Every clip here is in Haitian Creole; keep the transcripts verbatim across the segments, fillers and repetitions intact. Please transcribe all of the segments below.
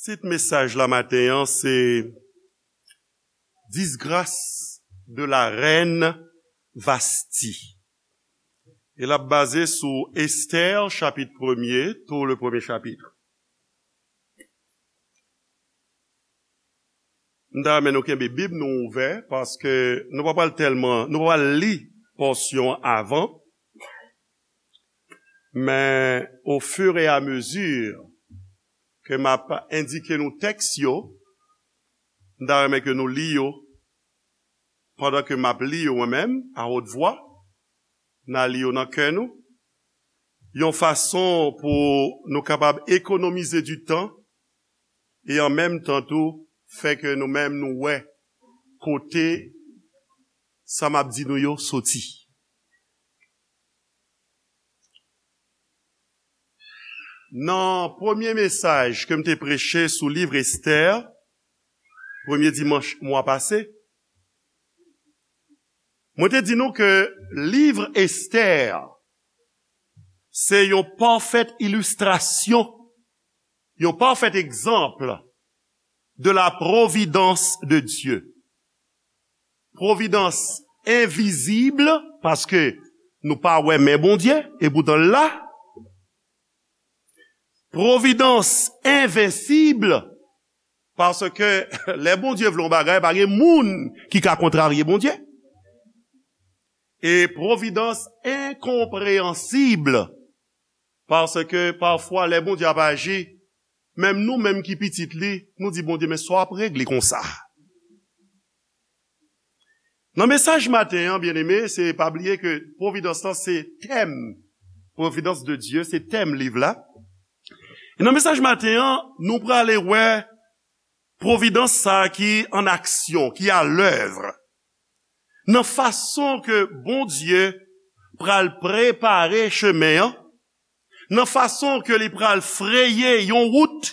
Tit mesaj la maten an se Disgrâce de la reine Vasti. E l ap baze sou Estè, chapit premye, tou le premye chapit. M ta renmen nou kenbe Bib nou ouvè, paske nou pa pral tèlman, nou pa pral li pòsyon an avan, men au fur et à mesure ke m ap endike nou tèks yo, m ta renmen ke nou li yo pandan ke m ap li yo mwen menm, à haute voix, n a li yo nan kè nou, yon fason pou nou kapab ekonomize di tan, e an menm tan tou, fè ke nou menm nou wè kote sa m ap di nou yo soti. Nan premye mesaj ke m te preche sou liv Estè, premye dimanch mwa pase, mwen te di nou ke liv Estè se yon pafèt ilistrasyon, yon pafèt egzanp de la providence de Dieu. Providence invisible, paske nou pa wè men Bondye, e poutan l la. Providence invincible, paske lè Bondye vle yon bagay, pa gen moun ki ka kontrarye Bondye. E providence incomprehensible, paske pafwa lè Bondye ap aji, menm nou menm ki pitit li, nou di, "Bondye, men sa w ap regle konsa?" Nan mesaj maten an, byeneme, se pa bliye ke providence lan se tèm, providence de Dieu, se tèm liv la. E nan mesaj maten an, nou prale wè providence sa a ki an aksyon, ki à l'œuvre. Nan fason ke Bondye pral prepare chemen an, nan fason ke li pral freye yon wout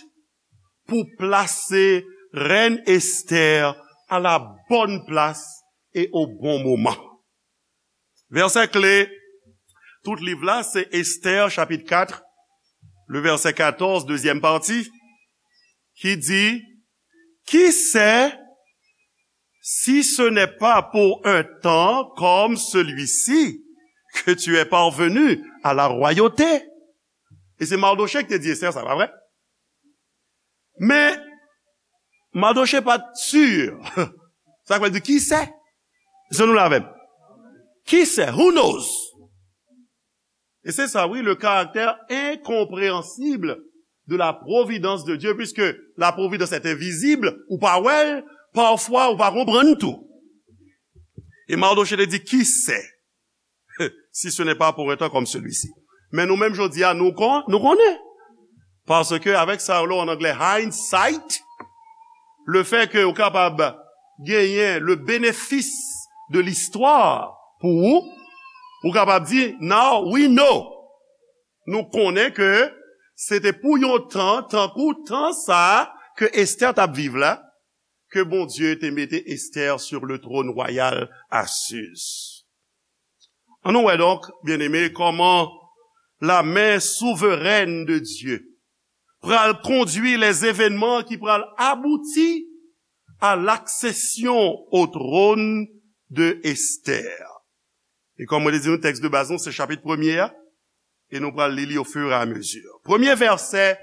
pou plase rèn Estè à la bonne place et au bon moment. Vèsè kle tout liv la, se Estè, chapit kat, le vèsè katòz, dezyèm pati, ki di, "Qui sait si ce n'est pas pour un temps comme celui-ci que tu es parvenu à la royauté?" E se Mardochée ki te di Estè sa, pa vre? Men, Mardochée pa t si. Sa vle di, "Qui sait?" Se nou la menm. "Qui sait? Who knows?" E se sa, wi, le caractère incompréhensible de la providence de Dieu, puisque la providence est invisible, ou pa wè l, pafwa ou pa konprann tou. E Mardochée te di, "Qui sait si ce n'est pas pour un temps comme celui-ci?" Men nou menm jodi a, nou kon-, nou konnen. Paske avèk sa yo, an anglè, hindsight, le fait que ou kapab genyen le bénéfice de l'histoire pou ou, ou kapab di, "Now we know." Nou konnen ke se te pou yon tan, tankou tan sa a ke Estè t ap viv la, ke Bondye te mete Estè sur le trône royal à Suse. Ann nou wè donk, byeneme, kòman la main souveraine de Dieu pral kondwi les événements ki pral abouti à l'accession au trône de Esther. E kòm mwen te di nou, tèks de baz nou se chapit premye a, e nou pral li li au fur et à mesure. Premye vèsè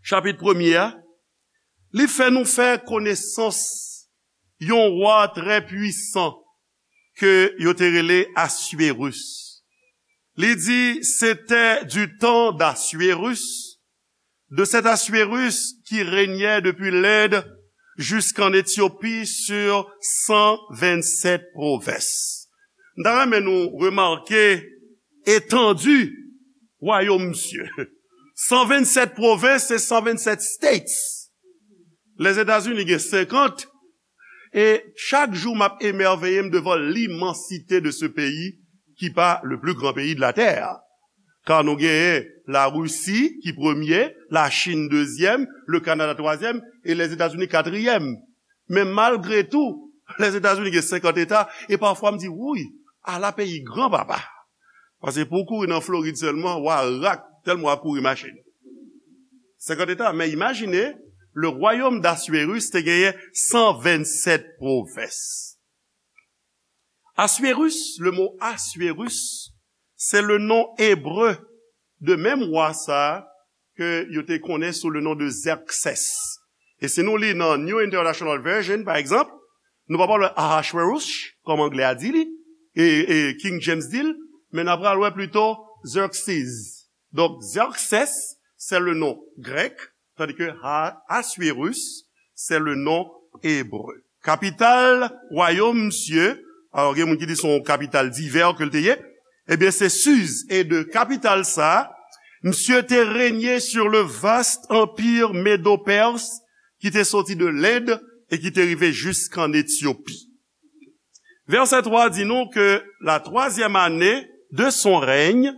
chapit premye a, li fè nou fè konesans yon wa trè pwisan ke yo te rele Assuérus. Li di, c'était du temps d'Assuérus, de cet Assuérus qui régnait depuis l'Inde jusqu'en Éthiopie sur cent vingt-sept provinces. M ta renmen nou remake etandi wayòm misye. San vennsèt pwovens, se san vennsèt states. Lèzetazini gen senkant, e chak jou m ap emèveye m devan l'immensité de ce pays qui pa le plus grand pays de la terre. Ka nou genyen Larisi ki premye, Lachin dezyèm, Lekanada twazyèm, e Lèzetazini katriyèm. Men malgre tou, Lèzetazini gen senkant eta, e pafwa m di, "Wouy, ala peyi gran papa." Paske pou w kouri nan Florid sèlman, w a rak, tèlman w ap kouri machin. Senkant eta, men imajine, Le royaume d'Assuérus te genyen san vennsèt pwovens. Assuérus, le mot Assuérus, c'est le nom hébreu de menm wa sa ke yo te konnen sou le nom de Xerxès. E si nou li nan New International Version, pa egzanp, nou pa pral wè Ahashwerosh, kòm anglè a di li, e, e King James di l, men n ap pral wè plito Xerxes. Donk, Xerxès, c'est le nom grec, tandis que Ha-, Assuérus, c'est le nom hébreu. Kapital wayòm misye, alò gen moun ki di se yon kapital divè ke l te ye, ebyen se Siz, e de kapital sa, misye te renye sur le vaste empire médo-perse ki te soti de Lend e ki te rive jiskann Etyopi. Verset trois dit nous que la troisième année de son règne,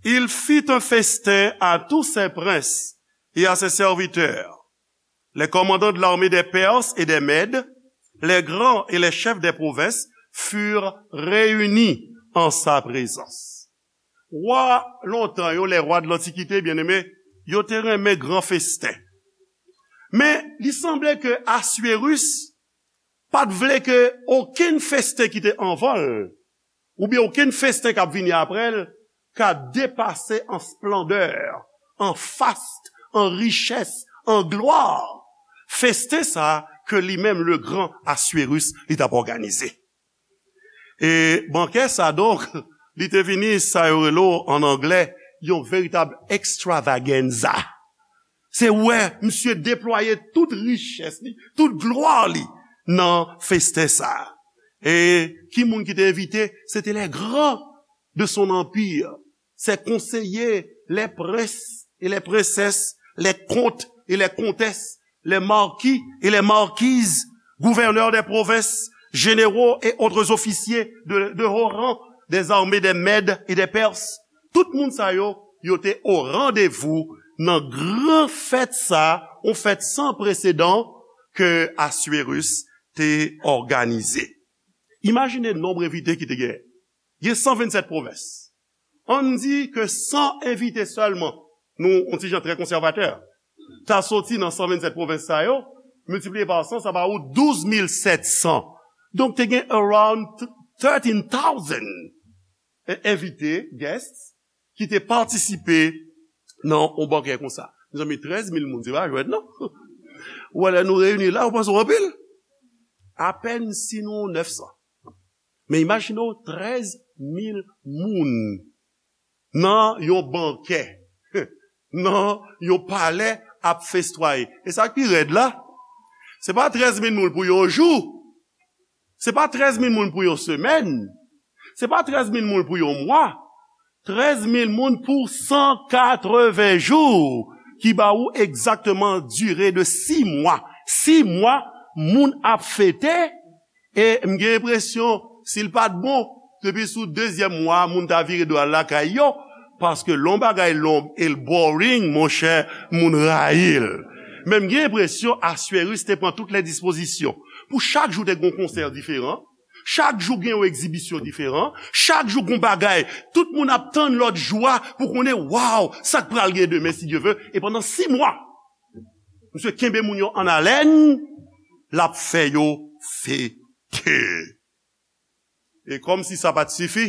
il fit un festin à tous ses princes et à ses serviteurs. Les commandants de l'armée des Perses et des Mèdes, les grands et les chefs des provinces furent réunis en sa présence. Wa lontan yo, les rois de l'Antiquité, byeneme, yo te renmen gran festen. Men, li sanble ke Assuérus pa t vle ke okenn festen ki te anvan l, oubyen okenn festen k ap vini apre l, ka depase an splandè, an fast, an richès, an glwa, festen sa ke li menm, le gran Assuérus, li t ap òganize. E bankè sa, donk, li te vini, sa yo rele an anglè, yon veritab extravaganza. Se wè misye deplwaye tout richès li, tout glwa li nan festen sa. E ki moun ki te envite? Se te les grands de son empire, ses conseillers, les princes et les princesses, les comtes et les comtesses, les marquis et les marquises, gouverneurs des provinces, généraux et autres officiers de, de haut rang des armées des Mèdes et des Perses. Tout moun sa yo, yo te o randevou nan gran fèt sa, yon fèt san presedan ke Assuérus te òganize. Imajine nonb envite ki te genyen. Gen san vennsèt pwovens. Ann di ke san envite sèlman, nou, yon ti jan trè konsèvatè, ta soti nan san vennsèt pwovens sa yo, miltipliye pa san, sa ba ou douz mil sèt san. Donk, te gen around thirteen thousand e, envite, guests, ki te patisipe nan yon bankè konsa. Mezanmi, trèz mil moun, se pa jwèt, non? Ou wè, lè nou reyini la, ou panse w anpil? Apèn si nou nèf san. Men imajine w, trèz mil moun nan yon bankè, nan yon palè ap festwaye. E sa k pi rèd la, se pa trèz mil moun pou yon jou, se pa trèz mil moun pou yon semèn, se pa trèz mil moun pou yon mwa, trèz mil moun pou san katreven jou, ki ba ou egzakteman dire de sis mwa. Sis mwa, moun ap fete, e m gen enpresyon, si l pa t bon, depi sou dezyèm mwa, moun ta vire do al lakay yo, paske lè yon bagay long e l boring, monchè, moun rayi l. Men m gen enpresyon Assuérus te pran tout lè dispozisyon. Pou chak jou te gen yon konsè diferan, chak jou gen yon egzibisyon diferan, chak jou gen yon bagay, tout moun ap tann lòt jou a pou konnen, waw, sa k pral gen demen, si Dye ve, e pandan sis mwa, misye kenbe moun yo an alèn, l ap fè yo fete. E kòmsi sa pa t sifi,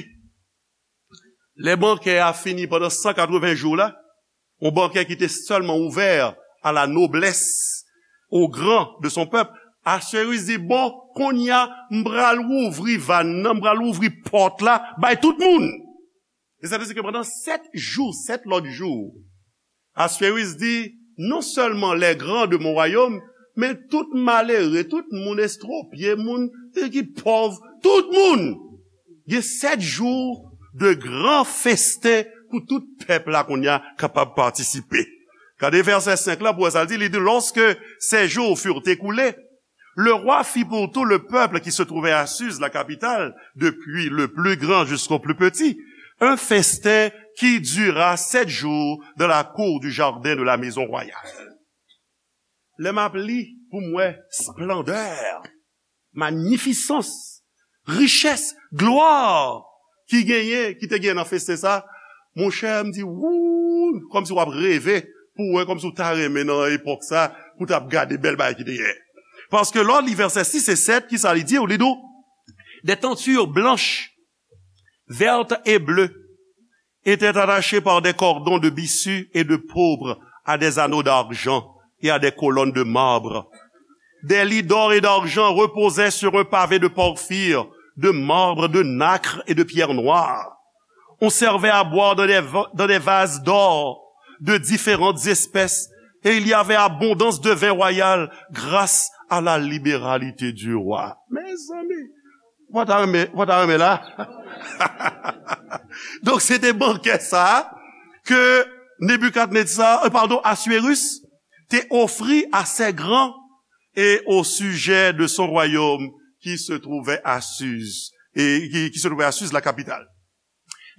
lè bankè a fini pandan san katreven jou la, yon bankè ki te sèlman ouvè à la noblesse, aux grands de son peuple, Assuérus di, bon, kounye a, m pral ouvri vàn nan, m pral ouvri pòt la, bay tout moun. E sa vle di ke pandan sèt jou, sèt lòt jou, Assuérus di, non sèlman les grands de mon royaume, men tout malere, tout moun estwopye, moun ki pòv, tout moun. Gen sèt jou de gran festen pou tout pèp la kounye a kapab patisipe. Gade vèsè senk la pou wè sa l di, li di, lorsque ces jours furent écoulés, le roi fit pour tout le peuple qui se trouvait à Suse, la capitale, depuis le plus grand jusqu'au plus petit, un festin qui dura sept jours dans la cour du jardin de la maison royale. Lè m ap li pou m wè splandè, manifisans, richès, glwa ki genyen, ki te genyen nan festen sa, monchè, m di, wouy, kòmsi w ap reve pou w wè, kòmsi w ta renmen nan epòk sa, pou w t ap gade bèl bagay ki te genyen. Paske lè w li vèsè sis e sèt, ki sa li di? Li di w, des tentures blanches, vertes et bleues étaient attachées par des cordons de byssus et de pourpre à des anneaux d'argent et à des colonnes de marbre. Des lits d'or et d'argent reposaient sur un pavé de porphyre, de marbre, de nacre et de pierre noire. On servait à boire dans des, va- dans des vases d'or de différentes espèces, et il y avait abondance de vin royal grâce à la libéralité du roi. Mezanmi, ou pa ta renmen, ou pa ta renmen la? Donk, se te bankè sa a ke Nebikadneza, euh, pardon, Assuérus te ofri à ses grands et au sujet de son royaume qui se trouvait à Suse, et qui, qui se trouvait à Suse, la capitale.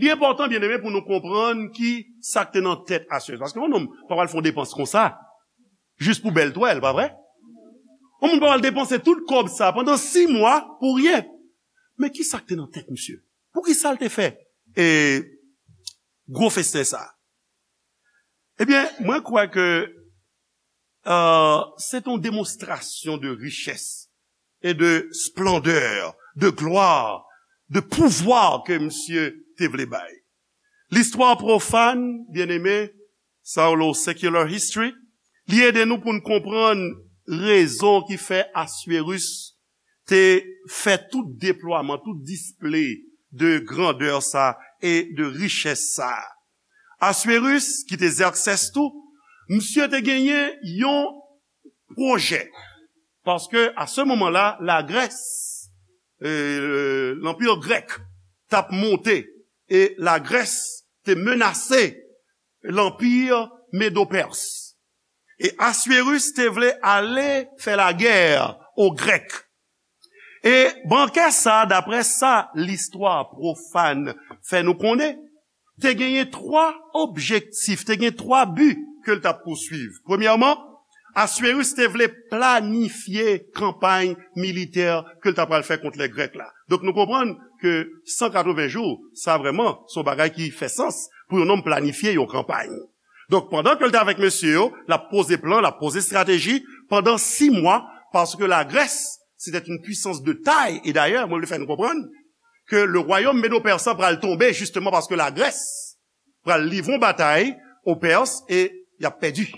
Li enpòtan, byeneme, pou nou konprann ki sa k te nan tèt Assuérus. Paske yon nonm pa pral fè yon depans konsa, jis pou bèl twèl, pa vre? Yon moun pa pral depanse tout kòb sa pandan sis mwa pou ryen. Men ki sa k te nan tèt misye? Poukisa l te fè e gwo festen sa? Ebyen, mwen kwè ke euh, se te yon demonstrasyon de richès e de splendè, de glwa, de pouvwa ke misye te vle bay. Listwa pwofàn, byeneme, sa yo rele secular history, li ede nou pou n konprann rezon ki fè Assuérus te fè tout deplwaman, tout display de grandè sa e de richès sa. Assuérus, ki te Xerxès tou, misye te genyen yon pwojè. Paske, a se moman la, Lagrès, euh, lanpi grèk, t ap monte, e Lagrès te menase lanpi Medo-Pès. E Assuérus te vle ale fè lagè o Grèk. E bankè sa, daprè sa listwa pwofàn fè nou konnen, te genyen twa objektif, te gen twa bi ke l t ap pouswiv. Premyèman, Assuérus te vle planifye kanpay militè ke l ta pral fè kont lè Grèk la. Donk, nou konprann ke san katreven jou, sa vrèman, se yon bagay ki fè sans pou yon nonm planifye yon kanpay. Donk, pandan ke l te avèk mesye yo, l ap poze plan, l ap poze estrateji pandan sis mwa, paske Lagrès, c'était une puissance de taille. E dayè, mwen vle fè nou konprann ke le royaume médo-persan pral tonbe, jisteman paske Lagrès pral livre yon batay o Pès e y ap pèdi.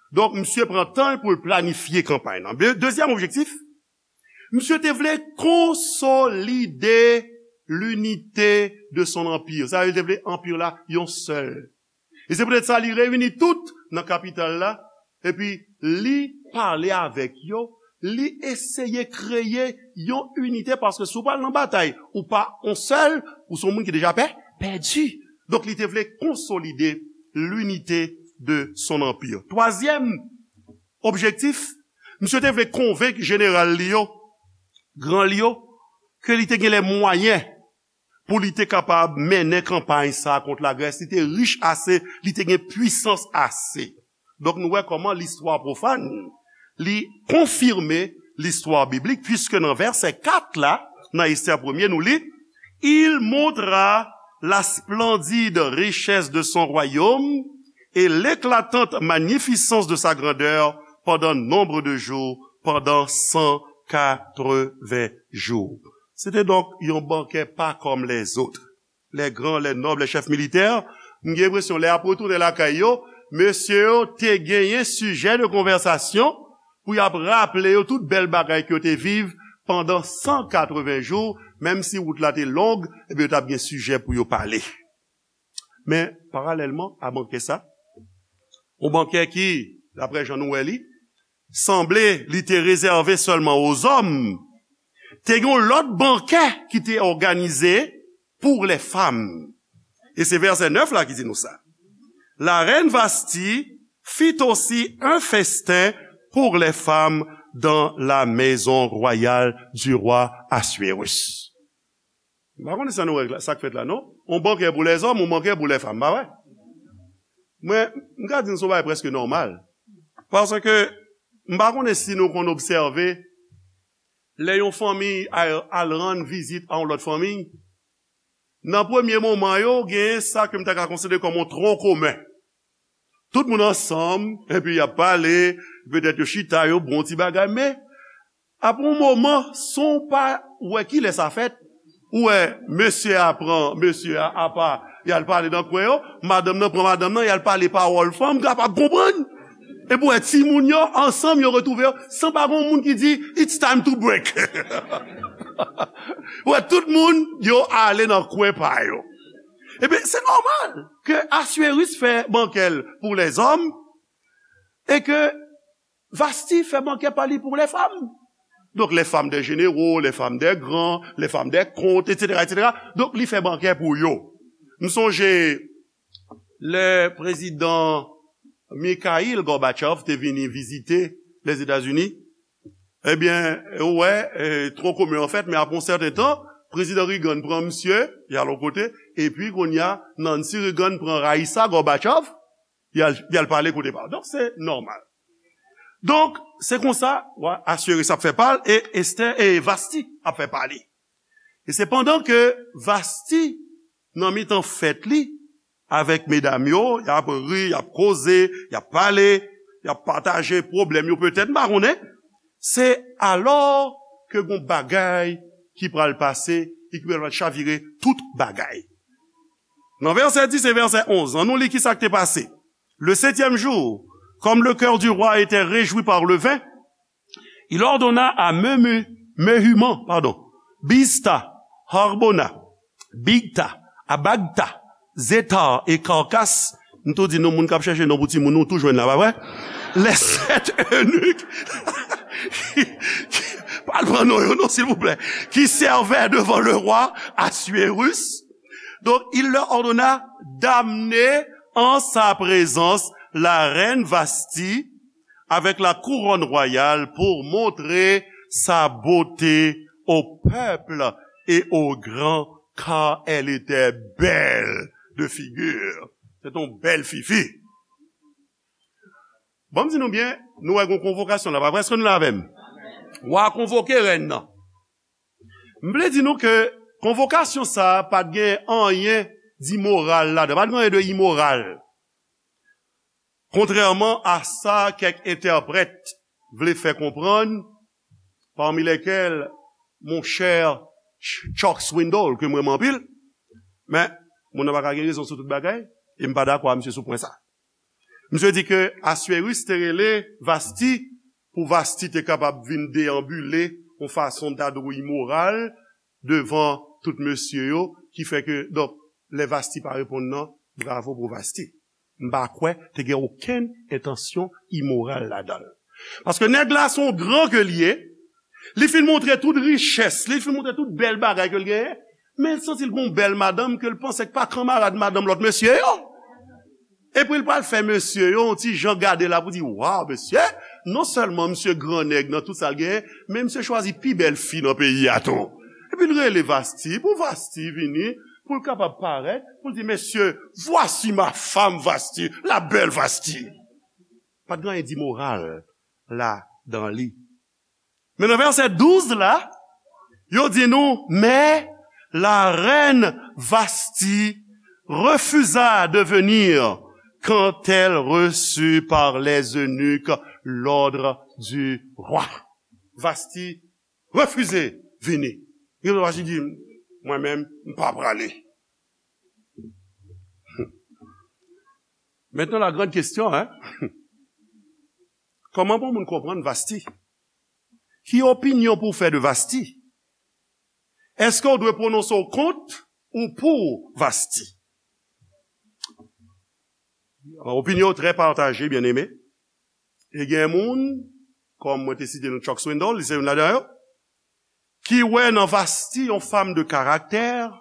Donk, misye pran tan l pou l planifye kanpay lan. De-, dezyèm objektif, misye te vle konsolide l'unité de son empire. Sa vle di, li te vle anpi la yon sèl. E se poutèt sa, li reyini tout nan kapital la, epi li pale avèk yo, li eseye kreye yon inite, paske si w pral nan batay, ou pa yon sèl, ou se yon moun ki deja pè, pèdi. Donk, li te vle konsolide l'unité de son empire. Twazyèm objektif, misye te vle konvenk jeneral li yo, gran li yo, ke li te gen lè mwayen pou li te kapab mennen kanpay sa a kont Lagrès. Li te rich ase, li te gen pwisans ase. Donk, nou wè kòman listwa pwofàn, li konfime listwa biblik, piske nan vèsè kat la, nan Estè premye, nou li, Il montra la splendide richesse de son royaume et l'éclatante magnificence de sa grandeur pendant nombre de jours, pendant cent quatre-vingts jours. Se te donk yon bankè pa kòm lèzòt. Les grands, les nobles, les chefs militaires, m gen enpresyon lè y ap retounen lakay yo, mesye yo te genyen sijè de konvèsasyon pou y ap raple yo tout bèl bagay ke yo te viv pandan san katreven jou, menm si wout la te long, ebyen yo t ap gen sijè pou yo pale. Men, paralèlman a bankè sa, yon bankè ki, daprè jan nou wè li, sanble li te rezève sèlman o zòm, te gen yon lòt bankè ki te òganize pour les femmes. E se vèsè nèf la ki di nou sa. La reine Vasti fit aussi un festin pour les femmes dans la maison royale du roi Assuérus. M pa konnen sa nou wè la, sa k fèt la, non? On bankè pou lèzòm, on bankè pou lèfanm, pa vre? Mwen, m ka di n se yon bagay prèske nòmal. Paske, m pa konnen si nou konn obsève, lè yon fanmi al, al rann vizit a yon lòt fanmi, nan premye moman yo, gen sa ke m ta ka konsidere kòm yon tron komen. Tout moun ansanm, epi y ap pale, petèt yo chita, yo bon ti bagay, men apre yon moman, san w pa wè kilè sa fèt, ou wè mesye a pran mesye a apa, y al pale nan kwen yo, madanm nan pran madanm nan, y al pale pawòl fanm kapab konprann. Epi w wè timoun yo, ansanm, yo retwouve yo, san pa gen yon moun ki di, "It's time to break." Ou wè tout moun, yo ale nan kwen pa yo. Ebyen, se nòmal ke Assuérus fè bankè l pou lèzòm e ke Vasti fè bankè pa li pou lèfam. Donk, les femmes des généraux, les femmes des grands, les femmes des comtes, et cetera, et cetera. Donk, li fè bankè pou yo. M sonje lè prezidan Mikhail Gorbachev te vini vizite Lèzetazini, ebyen, ou wè, e, tro komen an fèt, men apre yon sèten tan, prezidan Reagan pran misye, y al yon kote, epi kounye a, Nancy Reagan pran Raïssa Gorbachev, y al, y al pale kote pa yo. Donk, se nòmal. Donk, se konsa, wa Assuérus ap fè pa l, e Esther, e Vasti ap fè pa li. E se pandan ke Vasti, nan mitan fèt li, avèk medam yo, y ap ri, y ap koze, y ap pale, y ap pataje pwoblèm yo petèt, m pa konnen. Se alò ke gon bagay ki pral pase e ki pral chavire tout bagay. Nan vèsè dis e vèsè onz, ann nou li kisa k te pase. Le septième jour, comme le cœur du roi était réjoui par le vin, il ordonna à Memu, Mehuman, pardon, Bizta, Harbona, Bigta, Abagta, Zetar e Karkas. M tou di nou, moun k ap chèche non pou timoun, nou tou jwenn la, pa vre? Les sept eunuques qui, qui, pa al pran non yo, non, silvouplè, qui servaient devant le roi Assuérus. Donc, il leur ordonna d'amener en sa présence la reine Vasti avec la couronne royale pour montrer sa beauté au peuple et aux grands, car elle était belle de figure. Se te yon bèl fifi. Bon, m di nou byen, nou wè gon konvokasyon la, pa vre? Èske nou la avè m? Wa konvoke rèn nan. M vle di nou ke konvokasyon sa a pa t gen anyen dimoral ladan, pa t gen anyen de imoral. Kontrèman a sa kèk entèprèt vle fè konprann, parmi lesquels mon cher Ch-, Chuck Swindoll, ke m renmen anpil, men moun nan pa ka gen rezon sou tout bagay, e m pa dakò a misye sou pwen sa. Misye di ke Assuérus te rele Vasti pou Vasti te kapab vin deyanbile yon fason dadou imoral devan tout mesye yo, ki fè ke, donk, lè Vasti pa reponn nan, bravo pou Vasti. M pa kwè te gen okenn entansyon imoral ladan l. Paske nèg la se yon gran ke l ye, li fin montre tout richès li, li fin montre tout bèl bagay ke l genyen, men l santi l gon bèl madanm ke l panse k pa kanmarad madanm lòt mesye yo. Epi l pral fè mesye yo yon ti jan gade la pou di, "Waw, mesye, non sèlman misye gran nèg nan tout sa l genyen, men misye chwazi pi bèl fi nan peyi a tou." Epi l rele Vasti, pou Vasti vini, pou l kapab parèt, pou l di, "Mesye, voici ma femme Vasti, la belle Vasti." Pa t gen anyen dimoral ladan li. Men nan vèsè douz la, yo di nou, mais la reine Vasti refusa de venir quand elle reçut par les eunuques l'ordre du roi. Vasti refize vini. Li refize di, "Mwen menm, m pa prale." Maintenant, la grande question, hein? Kòman pou moun konprann Vasti? Ki opinyon pou w fè de Vasti? Èske w dwe pwononse w kont ou pou Vasti? Opinyon yo trè pataje, byeneme. E gen moun, kòm mwen te site nou Chuck Swindoll, li se youn ladan yo, ki wè nan Vasti yon femme de caractère,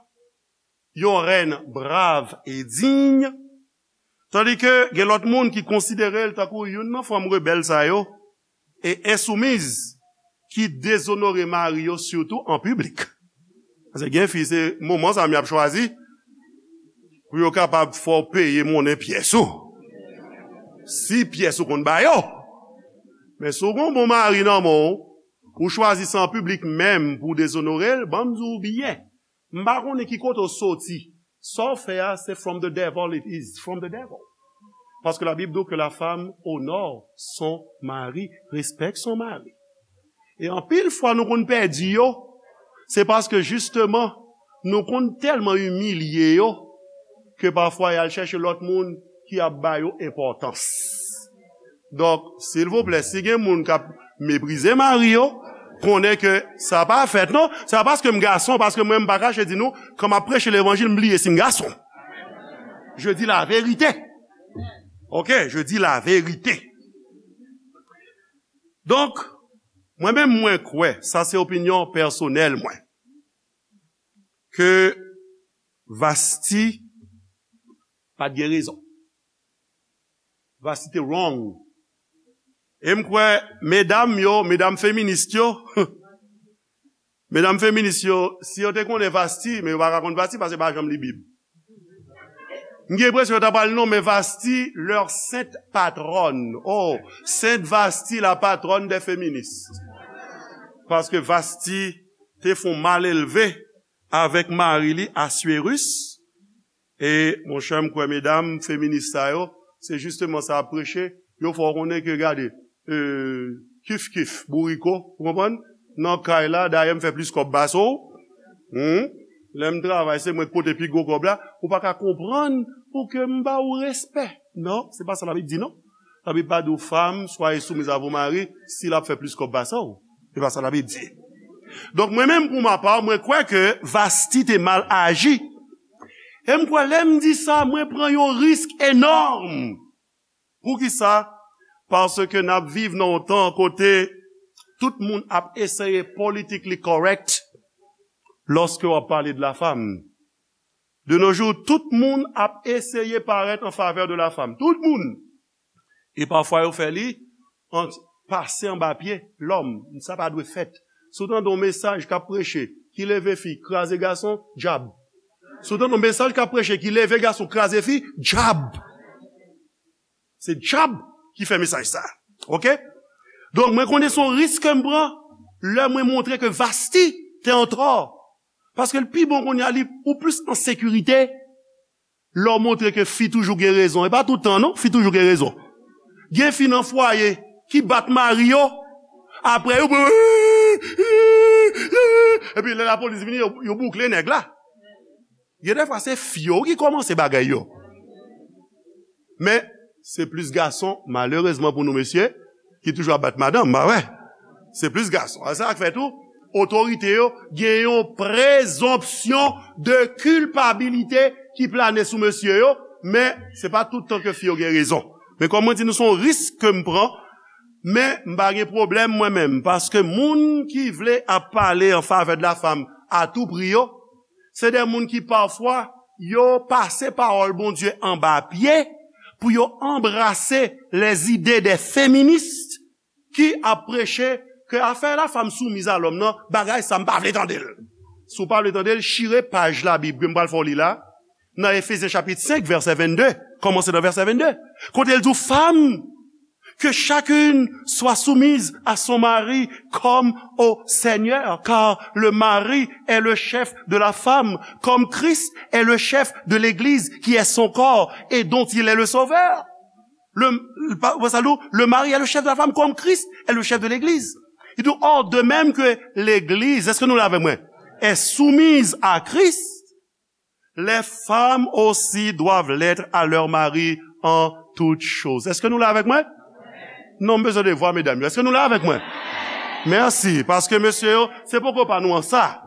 yon reine brave et digne, tandis que gen lòt moun ki konsidere l tankou youn nan fanm rebèl sa yo, e ensoumiz, ki dezonore mari yo sitou an piblik. Paske gen fi, se moman sa m y ap chwazi pou yo kapab fè w peye monnen pyès ou. Si pyès ou konn ba yo. Men si w gen yon bon mari nan men w, ou chwazi sa an piblik menm pou w dezonore l, ban m di w byen, m pa konnen ki kote w soti. Sa w fè a, se from the devil it is, from the devil. Parce que la Bible dit que la femme honore son mari, respecte son mari. E anpil fwa nou konn pèdi yo, se paske jisteman nou konn tèlman imilye yo ke pafwa y al chèche lòt moun ki ap ba yo enpòtans. Donk, silvouplè, si gen moun k ap meprize mari yo, konnen ke sa pa fèt non. Se pa paske m gason, paske mwen m pa kache di nou, kan m ap preche levanjil, m bliye si m gason. Je dis la vérité. Ok, je dis la vérité. Donk, mwen menm mwen kwè, sa se opinyon pèsonèl mwen, ke Vasti pa t gen rezon. Vasti te wrong. E m kwè medam yo, medam feminis yo, medam feminis yo, si yo te konnen Vasti, men yo pa ka konn Vasti paske yo pa janm li Bib. M gen enpresyon yo ta pral nonmen Vasti leur sainte patronne. Oh, Sainte Vasti, la patronne des féministes. Paske Vasti te fon malelve avèk mari li Assuérus. E monchè, m kwè medam feminis sa yo, se jisteman sa y ap preche. Yo fè w konnen ke, gade, e, kif kif, bouriko, ou konprann? Nan kay la, dayè m fè plis kòb pase w. Hmm? Lè m travay, se mwen k pote pi gwo kòb la. Ou pa ka konprann pou ke m ba ou respè. Non, se pa sa Labib di, non. Labib pa di w, femme, soyez soumise à vos maris, si l ap fè plis kòb pase w. Se pa sa Labib di. Donk, mwen menm, pou ma pa, mwen kwè ke Vasti te mal aji. E m kwè, lè m di sa, mwen pran yon risk enòm. Poukisa? Paske n ap viv nan yon tan kote tout moun ap eseye politically correct lòske w ap pale de la femme. De nos jours, tout moun ap eseye parèt an favè de la femme. Tout moun. E pafwa, yo fè li an, pase anba pye lòm. Sa pa dwe fèt. Si w tande yon mesaj k ap preche, ki leve fi, kraze gason, dyab. Si w tande yon mesaj k ap preche, ki leve gason, kraze fi, dyab. Se dyab ki fè mesaj sa. Ok? Donk, mwen konnen se yon risk ke m pran lè mwen montre ke Vasti te an tò. Paske l pi bon kounye a, li, ou plis an sekirite lè w montre ke fi toujou gen rezon. E pa tout tan, non, fi toujou gen rezon. Gen fi nan fwaye ki bat mari yo, apre yo, epi lè lapolis vini, yo, yo boukle nèg la. Gen defwa se fi yo ki kòmanse bagay yo. Men, se plis gason, malerezman pou nou mesye, ki toujou ap bat madanm, pa vre? Se plis gason. A sa k fè tou, otorite yo gen yon prezonpsyon de kilpabilite ki plane sou mesye yo, men se pa tout tan ke fi yo gen rezon. Men kòm mwen di nou, se yon risk ke m pran, men m pa gen pwoblèm mwen menm, paske moun ki vle ap pale an favè de la femme a tout prix yo, se de moun ki pafwa yo pase pawòl Bondye anba pye pou yo anbrase les idées des féministes ki ap preche ke afè la femme soumise à l'homme nan, bagay sa m pa vle tande l. Si w pa vle tande l, chire paj Labib ke m pral fè w li la, nan Efezyen chapit senk, vèsè vennde, kòmanse nan vèsè vennde, kote l di w, femme, que chacune soit soumise à son mari comme au Seigneur, car le mari est le chef de la femme, comme Christ est le chef de l'Église, qui est son corps, et dont il est le sauveur. Le, le, pa- pa sa, le mari est le chef de la femme, comme Christ est le chef de l'Église. Il dit, or, de même que l'Église, èske nou la avèk mwen, est soumise à Christ, les femmes aussi doivent l'être à leur mari en toutes choses. Èske nou la avèk mwen? Non, m bezwen de vwa medam yo. Èske nou la avèk mwen? Mèsi, paske mesye yo, se poko pa nou an sa.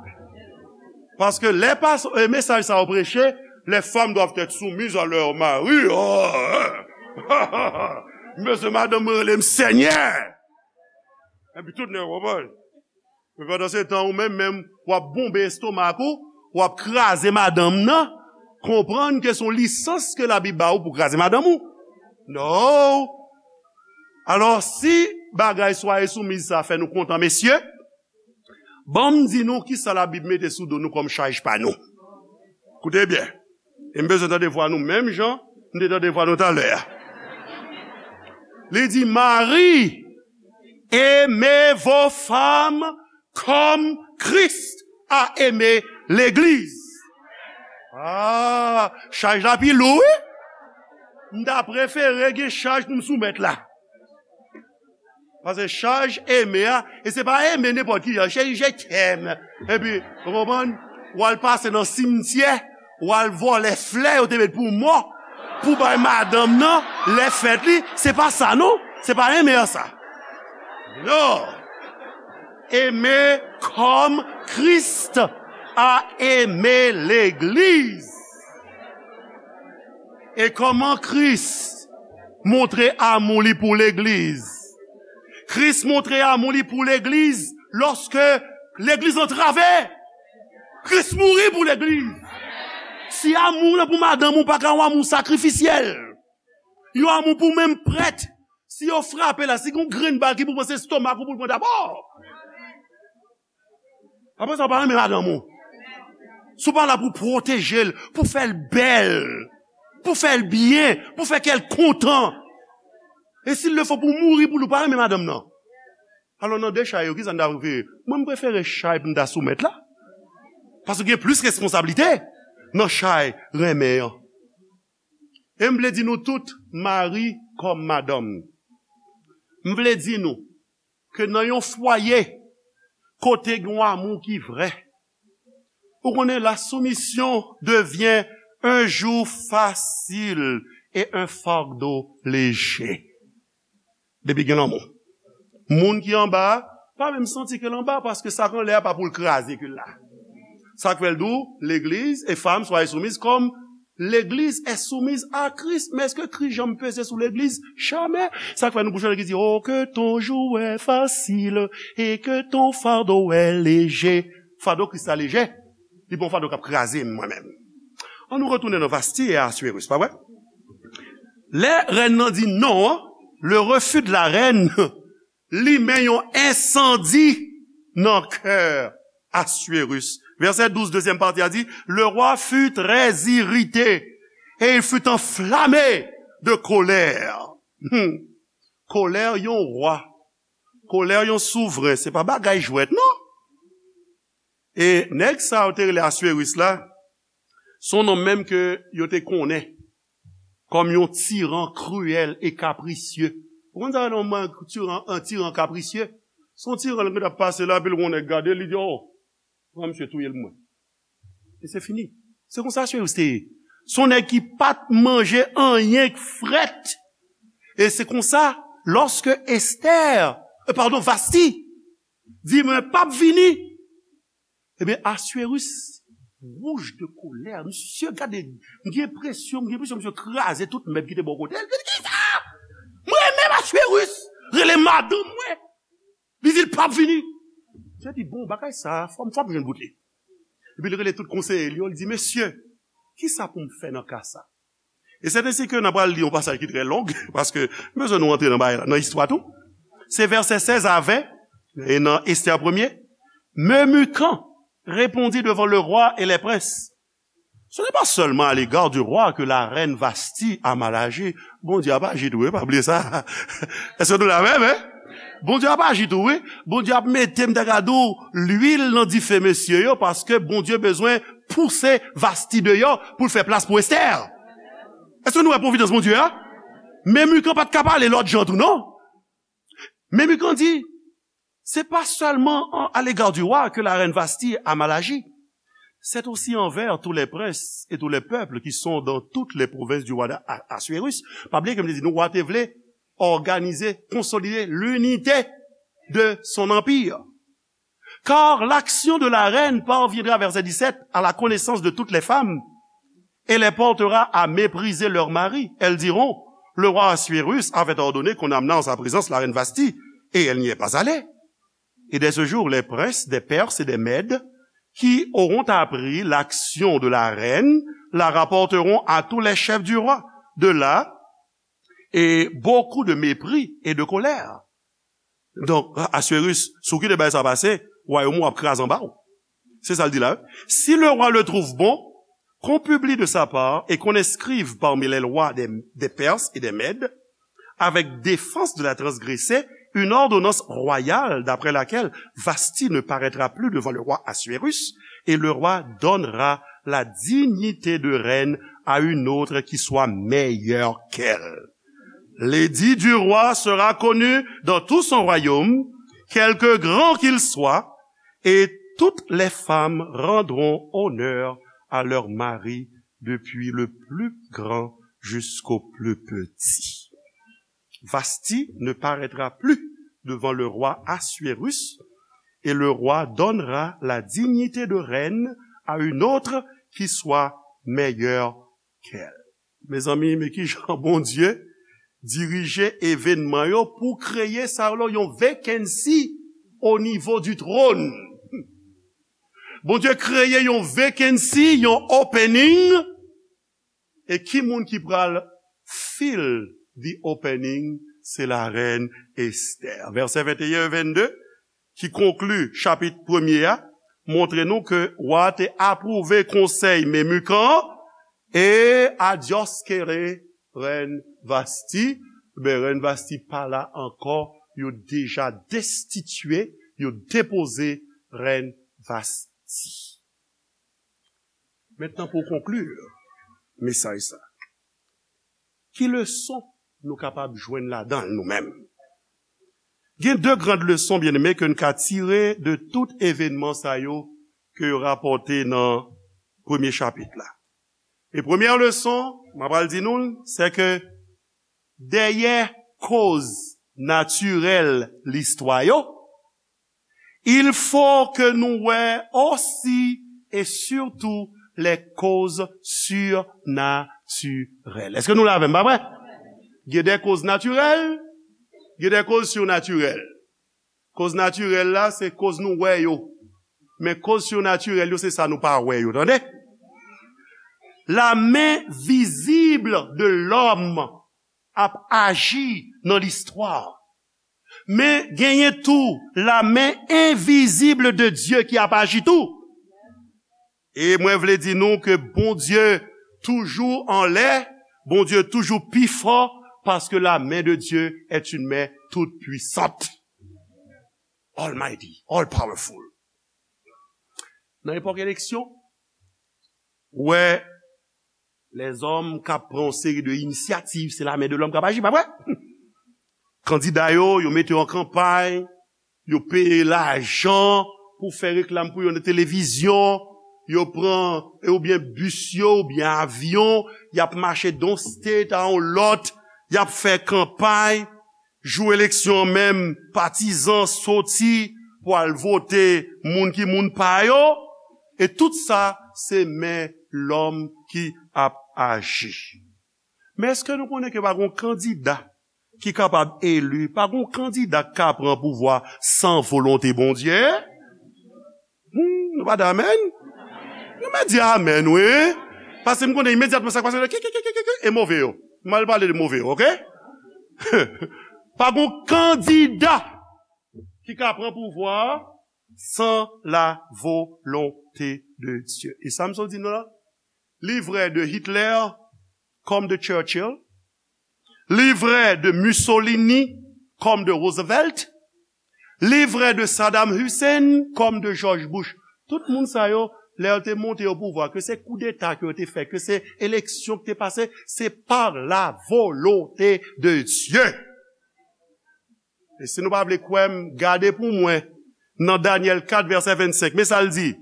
Paske lè pas, e, mesaj sa yo preche, les femmes doivent être soumises à leur mari. Oh, hein. M bezwen madanm mwen rele m Senyè. Epi tout nèg konprann. Men pandan se tan, ou menm, menm, w ap bonbe estomak ou, w ap kraze madanm nan, konprann ke se yon lisans ke Labib ba ou pou kraze madanm ou. No! Alò, si bagay soyez soumises sa fè nou kontan, mesye, ban m di nou kisa Labib mete sou do nou kòm chaj pa nou. Koute byen. E m bezwen tande vwa nou menm jan m te tande vwa nou talè a. Li di, mari, aimez vos femmes comme Christ a aimé l'Église. Ah, chaj la pi lou, wi. M ta prefere gen chaj pou m soumèt la. Paske chaj Eme a, e se pa Eme nenpòt ki jan, se je t'aime. Epi, ou konprann? W al pase nan simityè, w al vòlè flè yo te met pou mò, pou bay madanm nan, lè fèt li, se pa sa non, se pa Eme a sa. Non. Eme kòm Kris a eme legliz. E kòman Kris montre amou li pou legliz? Kris montre amou li pou legliz lòske legliz antrave. Kris mouri pou legliz. Si amou w lan pou madanm ou pa ka yon amou sakrifisyèl, yon amou pou menm prèt, si yo frape la, si gon grenn bal ki pou pran, se estomak ou pou l pran dabò. Apre sa, w pa renmen madanm ou. Si w pa la pou pwoteje l, pou fè l bèl, pou fè l byen, pou fè kè l kontan. E si l le fo pou mouri pou li, w pa renmen madanm nan. Alò, nan de chay yo, kisa n ta prefere? Mwen, m prefere chay pou m ta soumèt la. Paske gen plis responsablite nan chay renmen an. E m vle di nou tout, mari kòm madanm, m vle di nou ke nan yon fwaye kote gen yon amou ki vrè, ou konnen, la soumission devient un joug facile et un fardeau léger. Depi gen lanmou, moun ki anba a pa menm santi ke l anba, paske sa k anlè a pa pou l kraze ke l la. Sa k fè l di w, legliz, e femme, soyez soumises comme l'église est soumise à Christ. Men èske Kris janm peze sou legliz? Jamè. Sa k fè nou pou chante ki di, Oh, que ton joug est facile et que ton fardeau est léger. Fado Kris la lejè. Li pa yon fado k ap kraze m, mwen menm. An nou retounen nan Vasti e Assuérus, pa vre? Lè rèn nan di non an, le refus de la reine limen yon ensandi nan kè Assuérus. Vèsè douz, dezyèm pati a di, Le roi fut très irrité et il fut enflammé de colère. Hmm. Kolè yon wa, kolè yon souvren, se pa bagay jwèt, non. E nèg sa yo te rele Assuérus la, se yon nonm menm ke yo te konnen kòm yon tiran kriyèl e kaprisye. Ou konn sa, yon tiran, yon tiran kaprisye? Se yon tiran ki t ap pase la, epi l wè yon nèg gade, li di, Oh, pran misye touye l pou mwen. E se fini. Se konsa Assuérus te ye. Se yon nèg ki pa t manje anyen k frèt. E se konsa, lòske Esther, e, padon, Vasti, di, Mwen p ap vini. Ebyen, Assuérus wouj de kolè. Misye gade, m gen enpresyon, m gen enpresyon misye kraze tout mèb ki te bò kote l. Li di, Kisa? Mwen menm Assuérus rele madanm mwen. Li di l p ap vini. Misye di, Bon, bagay sa, fò m, fò m jwenn bout li. Epi li rele tout konseye l yo, li di, Mesye, kisa pou m fè nan ka sa? E sèten si ke n ap pral li yon pasaj ki trè long, paske m bezwen nou antre nan bagay la, nan istwa tou. Se vèsè sèz a ven, e nan Esther premye, Memucan répondit devant le roi et les princes, Ce n'est pas seulement à l'égard du roi que la reine Vasti a mal agi. Bondye ap aji tou, wi, pa bliye sa. Èske nou la menm, en? Bondye ap aji tou, wi. Bondye ap mete, m ta ka di w, lwil nan dife mesye yo, paske Bondye bezwen pouse Vasti deyò pou l fè plas pou Esther. Èske nou wè pwovidans Bondye a? Memucan pa t ka pale lòt jan tou, non. Memucan di, C'est pas seulement en- à l'égard du roi que la reine Vasti a mal agi. C'est aussi envers tous les princes et tous les peuples qui sont dans toutes les provinces du roi d'Assuérus. Pa bliye ke m te di nou, wa te vle òganize, konsolide linite de son anpi. Car l'action de la reine parviendra, verset dix-sept, à la connaissance de toutes les femmes et les portera à mépriser leur mari. Elles diront, Le roi Assuérus avait ordonné qu'on amenât en sa présence la reine Vasti, et elle n'y est pas allée. Et dès ce jour, les princes des Perses et des Mèdes qui auront appris l'action de la reine la rapporteront à tous les chefs du roi. De là, et beaucoup de mépris et de colère. Donk, Assuérus, si w kite bagay sa pase, wayòm ou ap kraze anba w. Se sa l di la, wi. Si le roi le trouve bon, qu'on publie de sa part et qu'on inscrive parmi les lois des, des Perses et des Mèdes, avec défense de la transgresser, une ordonnance royale d'après laquelle Vasti ne paraîtra plus devant le roi Assuérus, et le roi donnera la dignité de reine à une autre qui soit meilleure qu'elle. L'édit du roi sera connu dans tout son royaume, quelque grand qu'il soit, et toutes les femmes rendront honneur à leur mari, depuis le plus grand jusqu'au plus petit. Vasti ne paraîtra plus devant le roi Assuérus, et le roi donnera la dignité de reine à une autre qui soit meilleure qu'elle. Mezanmi, men kijan Bondye dirije evènman yo pou kreye sa yo yon vacancy au niveau du trône. Bondye kreye yon vacancy, yon opening, e ki moun ki pral fill the opening? Se la rèn Estè. Vèsè venteyen e vennde, ki konkli chapit premye a, montre nou ke wa te apwouve konsèy Memukan an, e adyòskere rèn Vasti. Men rèn Vasti pa la ankò, yo deja destitye, yo depoze rèn Vasti. Mentnan, pou konkli mesaj sa, ki leson nou kapab jwenn ladan l nou menm? Gen de grand leson, byeneme, ke n ka tire de tout evènman sa yo ke yo rapòte nan premye chapit la. E premyè leson m ap pral di nou l, se ke dèyè koz natirèl listwa yo, il faut que nou wè osi e sitou les causes surnaturelles. Èske nou la avè m, pa vre? Gen de koz natirèl, gen de koz sinatirèl. Koz natirèl la, se koz nou wè yo. Men koz sinatirèl yo, se sa nou pa wè yo, tande? La main visible de l'homme ap aji nan listwa. Men genyen tou la main invisible de Dieu ki ap aji tou. E mwen vle di nou ke Bondye toujou anlè, Bondye toujou pi fò, paske la main de Dieu est une main toute puissante. Almighty, all powerful. Nan epòk eleksyon, ou wè lèzòm k ap pran yon seri de inisyativ, se la main de l'homme k ap aji, pa vre? Kandida yo, yo mete yo an kanpay, yo peye lajan pou fè reklam pou yo nan televizyon, yo pran, oubyen bis yo, oubyen avyon, y ap mache d on state a yon lòt, y ap fè kanpay. Jou eleksyon an menm, patizan soti pou al vote moun ki moun pa yo, e tout sa, se men lòm ki ap aji. Men èske nou konnen ke pa gon kandida ki kapab eli, pa gon kandida k ka pran pouvwa san volonte Bondye? Hmm, nou pa di amèn? Nou mèt di amèn, wi. Paske m konnen imedyatman sa k pase, ki, ki, ki, ki, ki, ki, e move yo. M al pale de move yo, oke? Pa gon kandida ki ka pran pouvwa a san la volonte de Dye. E sa m sot di nou la, li vrè de Hitler kòm de Churchill, li vrè de Mussolini kòm de Roosevelt, li vrè de Saddam Hussein kòm de George Bush. Tout moun sa yo, lè yo te monte o pouvwa, ke se koudeta ke yo te fè, ke se eleksyon ki te pase, se pa la volonte de Dye. E si nou pa vle kwè m, gade pou mwen nan Danyèl kat vèsè vennsenk. Men sa l di,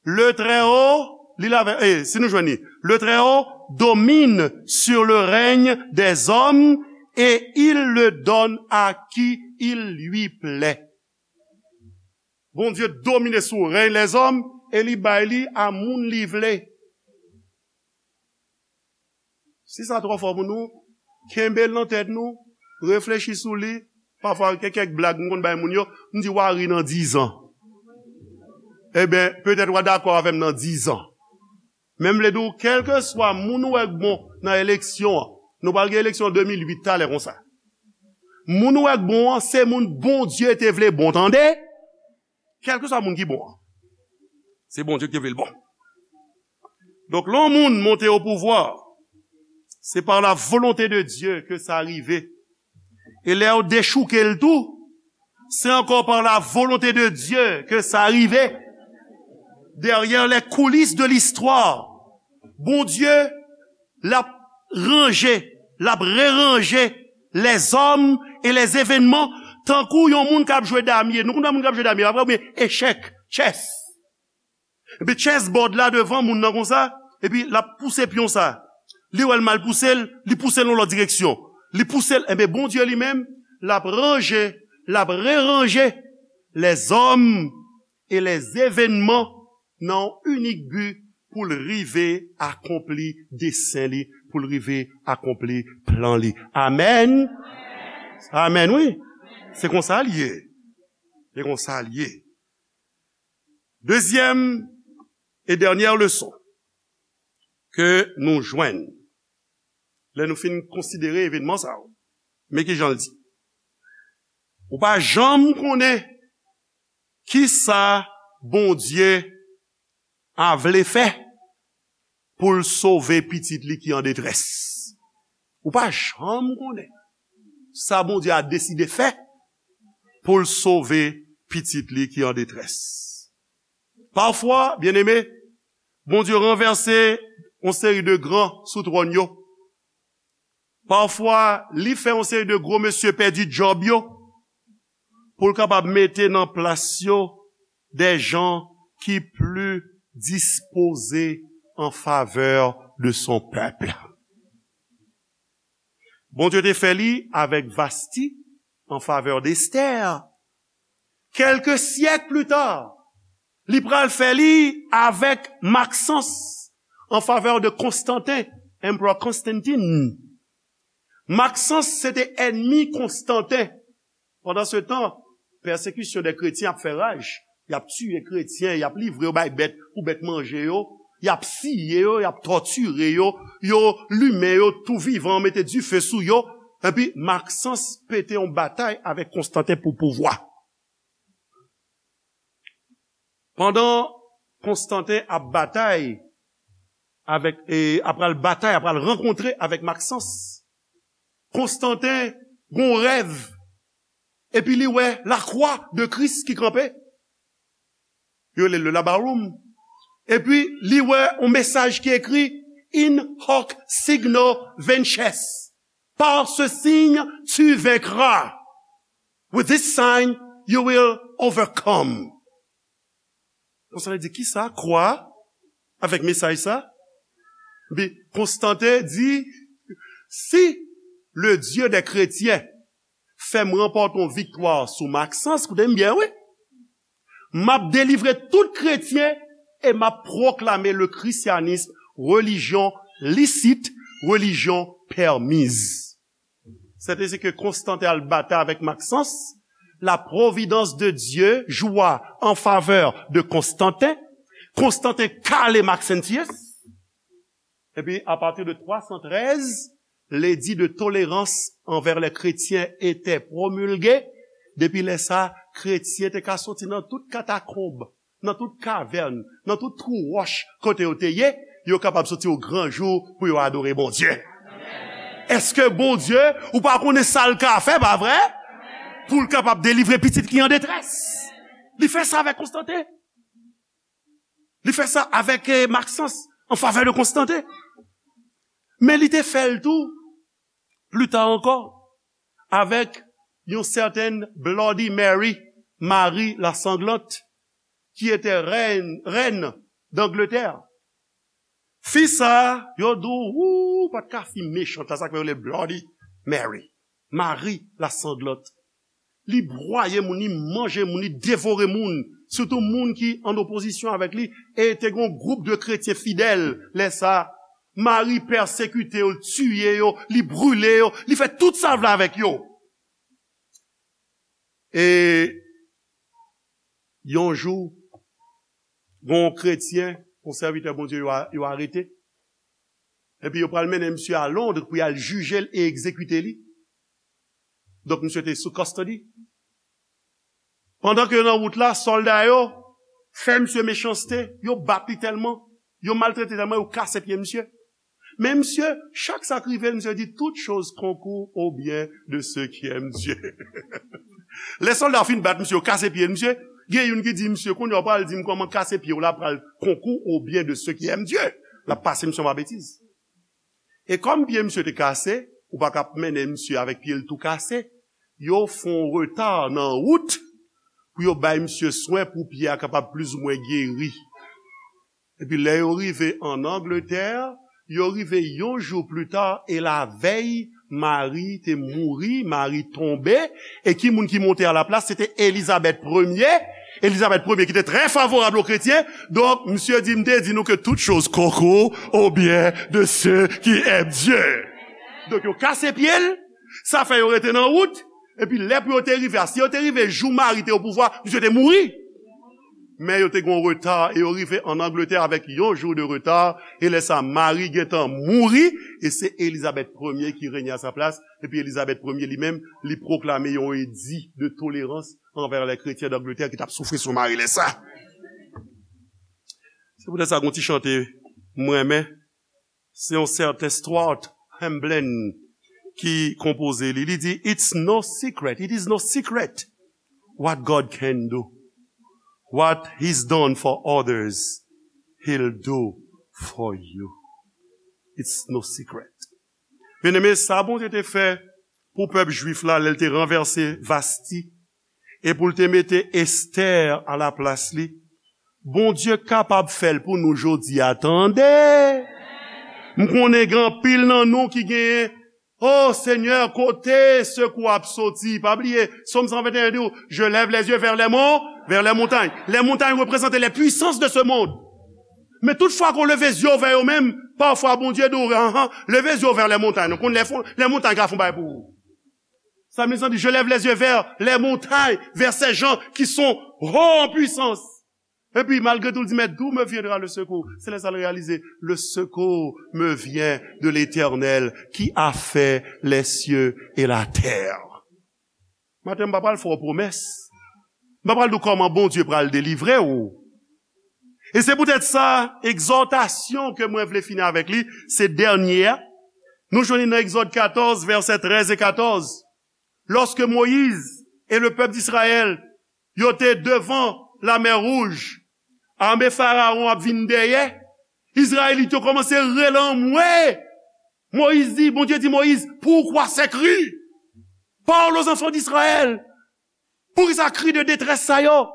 Le Très-Haut, li la, eh, si nou jwenn li, Le Très-Haut domine sur le règne des hommes et il le donne à qui il lui plaît. Bondye domine sou rèy lèzòm e li bay li a moun li vle. Si sa twò fò pou nou, kenbe l nan tèt nou, reflechi sou li. Pafwa, gen kèk blag m konn bay moun yo, m di, "W a ri nan dizan." Ebyen, petèt w a dakò avè m nan dizan. Men m vle di w, kèlkeswa moun ou wè k bon nan eleksyon an, nou pral gen eleksyon de mil uit talè konsa. Moun ou wè k bon an, se moun Bondye te vle bon, tande? Kèlkeswa moun ki bon an, se Bondye ki te vle l bon. Donk, lè yon moun monte o pouvwa, se pa la volonte de Dye ke sa rive. E lè yo dechouke l tou, se ankò pa la volonte de Dye ke sa rive. derrière les coulisses de l'histoire, Bondye, l ap ranje, l ap reranje lèzòm e lèzevenman, tankou yon moun k ap jwe damye. Nou konn wè moun k ap jwe damye, pa vre? Oubyen echèk, chess. Epi chessboard la devan moun nan konsa, epi l ap pouse pyon sa. Li wè l mal pouse l, li pouse l nan lòt direksyon. Li pouse l, enben Bondye li menm, l ap ranje, l ap reranje lèzòm e lèzevenman nan yon inik bi pou l rive akonpli desen li, pou l rive akonpli plan li. Amèn. Amèn, wi. Se konsa l ye. Se konsa l ye. Dezyèm e dènyè leson ke nou jwenn lè nou fin konsidere evenman sa yo. Men ki jan l di. Ou pa janm konnen kisa Bondye a vle fè pou l sove pitit li ki an detrès. Ou pa janm konnen sa Bondye a deside fè pou l sove pitit li ki an detrès. Pafwa, byeneme, Bondye ranvèse yon seri de gran sou twòn yo. Pafwa, li fè yon seri de gwo mesye pèdi djòb yo pou l kapab mete nan plas yo des gens qui plus disposés en faveur de son peuple. Bondye te fè li avèk Vasti an favè de Esther. Kèlke syèk pli ta, li pral fè li avèk Maxence an favè de Konstanten, Emperor Constantine. Maxence se te ènmi Konstanten. Pandan se tan, pèsekisyon dè kretyen ap fè raj. Y ap tiye kretyen, y ap livre yo bay bèt pou bèt manje yo, y ap siye yo, y ap tòtire yo, yo limen yo tou vivan, mete dife sou yo. Epi Maxence pete yon batay avèk Konstanten pou pouvwa. Pandan Konstanten ap batay avèk, e, ap pral batay, ap pral rankontre avèk Maxence, Konstanten gon rèv, epi li wè lakwa de Kris ki kanpe. Yo rele le labarum. Epi li wè yon mesaj ki ekri: In hoc signo vinces. Par ce signe, tu vaincras. With this sign, you will overcome. Konstanten di, kisa? Kwa? Avèk mesaj sa? Epi Konstanten di, si le Dieu des chrétiens fè m ranpòte yon viktwa sou Maxence, koute m byen, wi. M ap delivre tout kretyen e m ap pwoklame le christianisme religion licite, religion permise. Sètadi ke Konstanten al batay avèk Maxence, la providence de Dieu joua en faveur de Constantin. Konstanten kale Maxentius. Epi, apati de twa san trèz, ledi de tolerans anvè lè kretyen etè pwomilge. Depi lè sa, kretyen te ka soti nan tout katakonb, nan tout kavèn, nan tout twou wòch kote yo te ye, yo kapab soti o gran jou pou yo adore Bondye. Èske Bondye, ou pa konnen sa l ka fè, pa vre? Pou l kapab delivre pitit ki an detrès. Li fè sa avèk Konstanten. Li fè sa avèk, eh, Maxence, an favè de Konstanten. Men li te fè l tou, pli ta ankò, avèk yon sètèn Bloody Mary, Mari Lasanglante, ki etè rèn, rèn d'Angleterre. Fi sa, yo di w, ou, pa t ka fi mechan, sa k fè yo rele l Bloody Mary, Mari Lasanglante. Li bwaye moun, li manje moun, li devore moun, sitou moun ki an opozisyon avèk li, e te gen yon gwoup de kretyen fidèl lè sa. Mari pèsekite yo, l tiye yo, li brile yo, li fè tout sa l vle avèk yo. E yon jou, gen yon kretyen, yon sèvitè Bondye yo a-, yo arete. Epi yo pral mennen misye a Londres pou y al jije l e egzekite li. Donk, misye te sou custody. Pandan ke yo nan wout la, sòlda yo fè misye mechanste, yo bat li tèlman, yo maltrete tèlman, yo kase pye misye. Men misye, chak sa k rive l, misye di, toute chose concourt au bien de ceux qui aiment Dieu. Lè sòlda yo fin bat misye, yo kase pye misye, Gen youn ki di, "Misye, kounye a w pral di m kòman kase pye w la pral konkou au bien de ceux qui aiment Dieu." L ap pase misye anba betiz. E kòm pye misye te kase, ou pa ka ap mennen misye avèk pye l tou kase. Yo fè yon reta nan wout pou yo bay misye swen pou pye a kapab plizoumwen geri. Epi lè yo rive ann Angletè, yo rive yon jou pli ta, e lavèy, Mari te mouri, Mari tonbe, e ki moun ki monte alaplas? Se te Elizabèt premye. Elizabèt premye ki te trè favorab o kretyen. Donk, misye di, "M te di nou ke tout choz konkou au bien de ceux qui aiment Dieu." Donk, yo kase pye l, sa fè yo rete nan wout, epi lè pou yo te rive a, si yo te rive jou Mari te o pouvwa, misye te mouri. Men yo te gen yon reta, e yo rive ann Angletè avèk yon jou de reta, e lè sa, Mari gentan mouri, e se Elizabèt premye ki renye a sa plas, epi Elizabèt premye li menm, li pwoklame yon edi de tolerans anvè lè kretyen d'Angleterre ki t ap soufri sou Mari lè sa. Se poutèt sa, gon ti chante mwen renmen, se yon sèten Stuart Hamblen ki konpoze li. Li di, "It's no secret, it is no secret what God can do. What he's done for others, he'll do for you." It's no secret. Byeneme, sa Bondye te fè pou pèp jwif la, lè l te ranvèse Vasti, e pou l te mete Estè alaplas li, Bondye kapab fè l pou nou jodi a, tande. M konnen gen anpil nan nou ki genyen, "O Senyè, kote sekou ap soti?" Pa bliye, Sòm san venteyen di w, "Je lève les yeux vers les monts, vers les montagnes." Les montagnes représentent les puissances de ce monde. Men tout fwa ke w leve zye w vè yo menm, pafwa Bondye di w, "Anhan, leve zye w vè les montagnes." Non, konn lè fon, les montagnes ka fon bagay pou ou. Sa vle di, "Je lève les yeux vers les montagnes, vers ces gens qui sont hauts en puissance." Epi, malgre tou, l di, "Mais d'où me viendra le secours?" Se lè sa l reyalize, "Le secours me vient de l'Éternel qui a fait les cieux et la terre." Maten, m pa pral fè w pwomès. M pa pral di w kòman Bondye pral delivre w. E se poutèt sa, egzòtasyon ke mwen vle fini avèk li, se dènye a. Nou jwenn li nan Egzòd katòz, vèsè trèz e katòz. Lorsque Moïse et le peuple d'Israël, yo te devan Lamè Wouj, ame Farawon ap vin dèyè, Izrayelit yo kòmanse rele anmwe. Moyiz di, Bondye di Moyiz, "Pourquoi ces cris? Parle aux enfants d'Israël." Poukisa kri de detrès sa yo?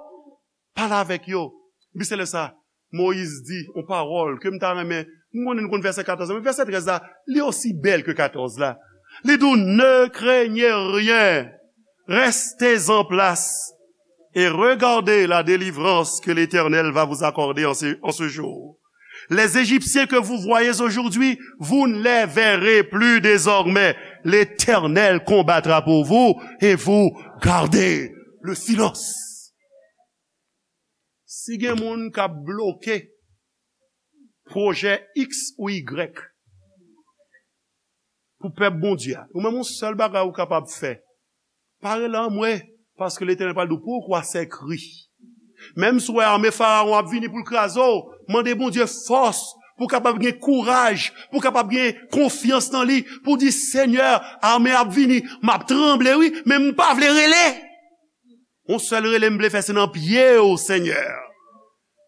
Pale avèk yo. Epi se lè sa, Moyiz di yon pawòl ke m ta renmen, m konnen nou konn vèsè katòz la, men vèsè trèz la, li osi bèl ke katòz la. Li di w, "Ne craignez rien, restez en place et regardez la délivrance que l'Éternel va vous accorder en ce, en ce jour. Les Égyptiens que vous voyez aujourd'hui, vous ne les verrez plus désormais. L'Éternel combattra pour vous et vous gardez le silence." Si gen moun k ap bloke pwojè X ou Y pou pèp Bondye a, ou menm yon sèl bagay ou kapab fè, pa rele anmwe, paske Letènèl pral di w, "Pourquoi ces cris?" Menm si w wè ame Farawon ap vini pou l kraze w, mande Bondye fòs pou w kapab gen kouraj, pou w kapab gen konfyans nan li, pou w di, "Senyè, ame ap vini, m ap tranble, wi, men m pa vle rele." Yon sèl rele m vle fè, se nan pye w, Senyè.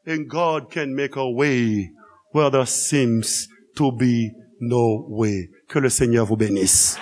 And God can make a way where there seems to be no way. Que le Seigneur vous bénisse.